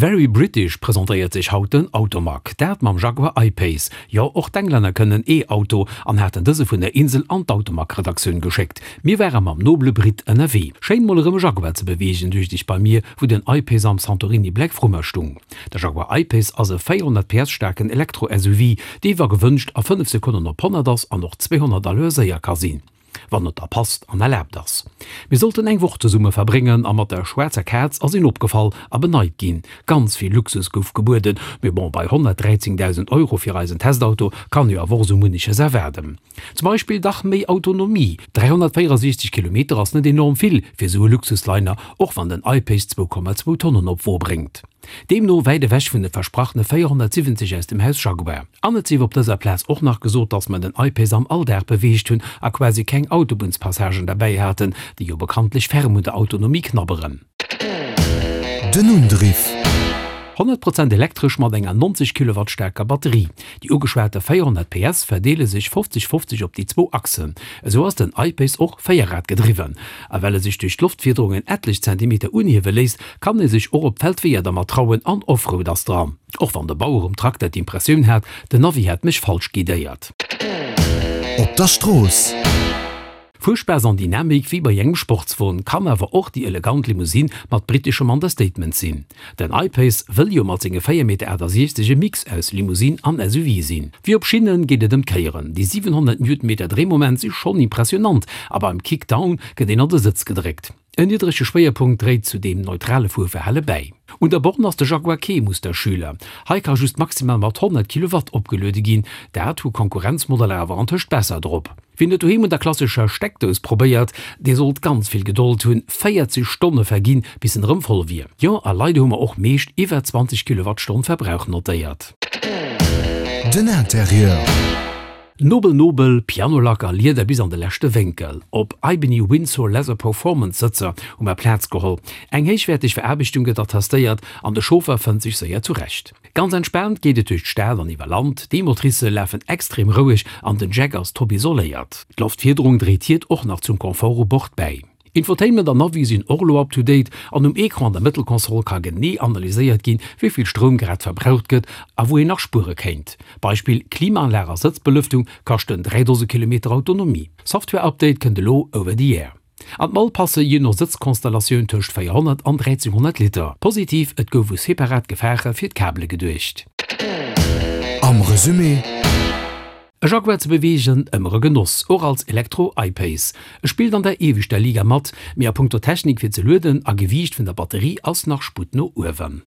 Very British presentéiert sech haut den Automag. Dat mam Jaguar I-Pace. Jo, och d'Englänner kënnen E-Auto an haten dëse vun der Insel an d'Automag-Redaktioun geschéckt. Mir ware mam nobele Brit ënnerwee. Schéin mol erëm e Jaguar ze beweegen, duecht ech bei mir, wou den I-Pace am Santorini Black vru mer stung. De Jaguar I-Pace ass e 400 PS staarken Elektro-SUV, dee wa gewënscht a 5 Sekonnen op 100 ass an och 200 à l'heure séier ka sinn. Wann et da passt an erlaabt ass. Mir sollten eng Woch zesumme verbréngen a mat der schwaarzer Kaz ass een opgefall a beneit ginn. Ganz vill Luxus gouf gebueden, mee bon, bei 113.000 Euro fir eisen Testauto kann jo awer och sou munneches erwaarden. Zum Beispill dach méi Autonomie, 364 Kilometer ass net enorm vill fir sou e Luxusliner, och wann den I-Pace 2,2 Tonnen op d'Wo bréngt. Deemno wäit ewech vun de versprachene 470 aus dem Haus Jaguar. An et sief op dëser Plaz och nach gesot, datt mer den I-Pace am Alldag beweegt hunn a quasi keng Autobunnspassagen derbäi haten, déi jo bekanntlech ferm un der Autonomie knabberen. Den Undriff. 100 Prozent elektresch mat enger 90 Kilowatt staarker Batterie. Déi ugeschwate 400 PS verdeele sech 50, 50 op déi zwou Achsen. Esou ass den I-Pace och véierrad-gedriwwen. A well e sech duerch d'Loftfiederung en etlech Zentimeter unhiewe léisst, kann ee sech och op d'Feldweeër dermat trauen an Offroad ass dran. Och wann de Bauer um Trakter d'Impressioun hat, den Navi hätt mech falsch guidéiert. Op der Strooss. Fuerspaass an Dynamik wéi bei engem Sportswon, kann awer och déi elegant Limousine mat briteschem Understatement sinn. Den I-Pace wëll jo mat senge 4,68 Meter e Mix aus Limousine an SUV sinn. Wéi op Schinnen geet et ëm d'Kéieren. Déi 700 Newtonmeter Dréimoment si schonn impressionant a beim Kickdown gëtt een an de Sëtz gedréckt. En niddrege Schwéierpunkt dréit zu deem neutrale Fuerverhale bäi. Un der Borne ass de Jaguar kee Musterschüler. Hei ka just maximal mat 100 Kilowatt opgeluede ginn. Dat hu Konkurrenzmodeller awer antëscht besser drop. Wien et doheem un der klassescher Steckdous probéiert, dee sollt ganz vill Gedold hunn, 40 Stonne verginn, bis en erëm voll wier. Jo, a leider hu mer och meescht iwwer 20 Kilowattstonn Verbrauch notéiert. Den Interieur. Nobel nobel, Pianolack a Lieder bis an de leschte Wénkel. Op Ebony Windsor Leather Performance Sëtzer hu mer Plaz geholl. Eng héichwäerteg Veraarbechtung gëtt attestéiert an de Chauffer fënnt sech séier zurecht. Ganz entspaant geet et duerch d'Stad an iwwer Land, d'E-Motricë lafen extrem roueg an den Jack ass top isoléiert. D'Loftfiederung dréit hiert och nach zum Confort u Bord bäi. Infotainment an Navi sinn och elo up to date an um Ecran an der Mëttelkonsol ka genee analyséiert ginn, wéi vill Stroum grad verbraucht gëtt a wou een nach spuere kéint. Beispill, Klimaanlag a Sëtzbelëftung kaschten 3 Dose Kilometer Autonomie. Software-Update kënnt elo over the air. An d'Mall passe jee no Sëtzkonstellatioun tëscht 400 an 1300 Liter. Positiv, et gouf u separat Gefaache fir d'Kabele geduecht. Am Resumé. E Jaguar ze beweegen, ëmmer e Genoss, och als Elektro I-Pace. E spillt an der ieweschter Liga mat, mee a punkto Technik fir ze lueden a Gewiicht vun der Batterie ass nach Sputt no uewen.